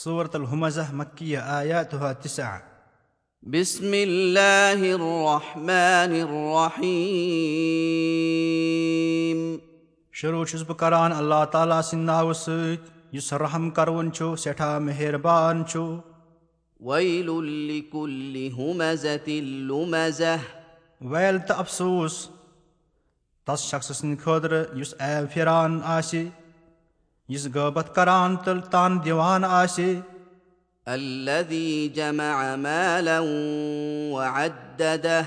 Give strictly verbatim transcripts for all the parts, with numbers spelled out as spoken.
سورة الہمزہ، مکیہ، آیاتها تسع۔ بسم الله الرحمن الرحيم۔ شروع چھُس بہٕ کران اللہ تعالیٰ سٕنٛدِ ناوٕ سۭتۍ، یُس رحم کرون چھُ، سٮ۪ٹھاہ مہربان چھُ۔ ويل لكل همزة لمزة۔ ویل تہٕ افسوس تس شخص سٕنٛدِ خٲطرٕ یُس عیب پھیران آسہِ، یُس غٲبت کران تہٕ تان دِوان آسہِ، الذي جمع مالا وعدده۔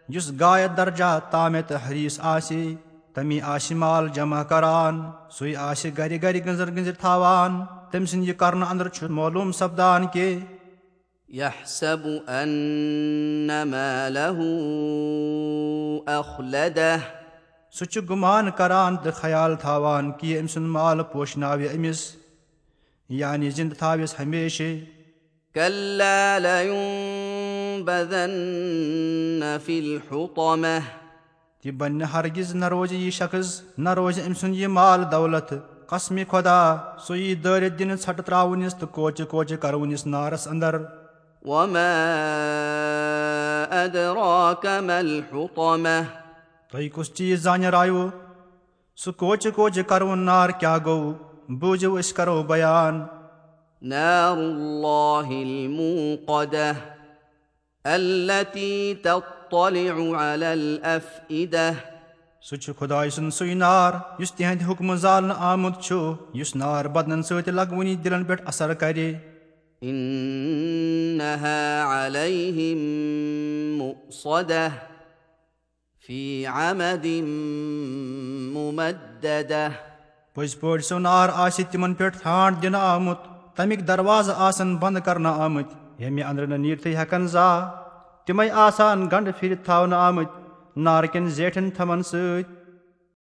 یُس غایت درجہ تامِ تہٕ حریص آسہِ، تمی آسہِ مال جمع کران، سُے آسہِ گرِ گرِ گٔنزر گٔنزر تھاوان۔ تٔمۍ سٕنٛدِ یہِ کرنہٕ اندر چھُ معلوم سپدان کہِ يحسب أن ماله أخلده۔ سُہ چھُ گُمان کران تہٕ خیال تھاوان کہِ أمۍ سُنٛد مال پوشناوِ أمِس، یعنی زِنٛدٕ تھاوٮ۪س ہمیشہِ۔ كلا لينبذن في الحطمة۔ تہِ بنہِ نہٕ ہرگز، نہ روزِ یہِ شخص، نہ روزِ أمۍ سُنٛد یہِ مال دولت۔ قسمِ خدا، سُہ یی دٲرِتھ دِنہٕ، ژھٹہٕ ترٛاونِس تہٕ کوچہِ کوچہِ کرونِس نارس اندر۔ وما أدراك ما الحطمة۔ تۄہہِ کُس چیٖز زانہِ رایو؟ سُہ کوچہِ کوچہِ کرون نار کیٛاہ گوٚو؟ بوٗزِو، أسۍ کرو بیان۔ نار الله الموقدة۔ التي تطلع على الأفئدة۔ سُہ چھُ خدایہِ سُنٛد سُے نار یُس تِہنٛدِ حُکمہٕ زالنہٕ آمُت چھُ، یُس نار بدنن سۭتۍ لگوٕنی دِلن پٮ۪ٹھ اثر کرِ۔ إنها عليهم مؤصدة۔ في عمد ممددة۔ پٔزۍ پٲٹھۍ سُہ نار آسہِ تِمن پٮ۪ٹھ ٹھانڈ دِنہٕ آمُت، تمیِکۍ دروازٕ آسن بند کرنہٕ آمٕتۍ، ییٚمہِ اندرٕ نہٕ نیٖرتھٕے ہٮ۪کن زانٛہہ۔ تِمے آسن گنڈٕ پھِرِتھ تھاونہٕ آمٕتۍ نارٕ کٮ۪ن زیٹھٮ۪ن تھمن سۭتۍ۔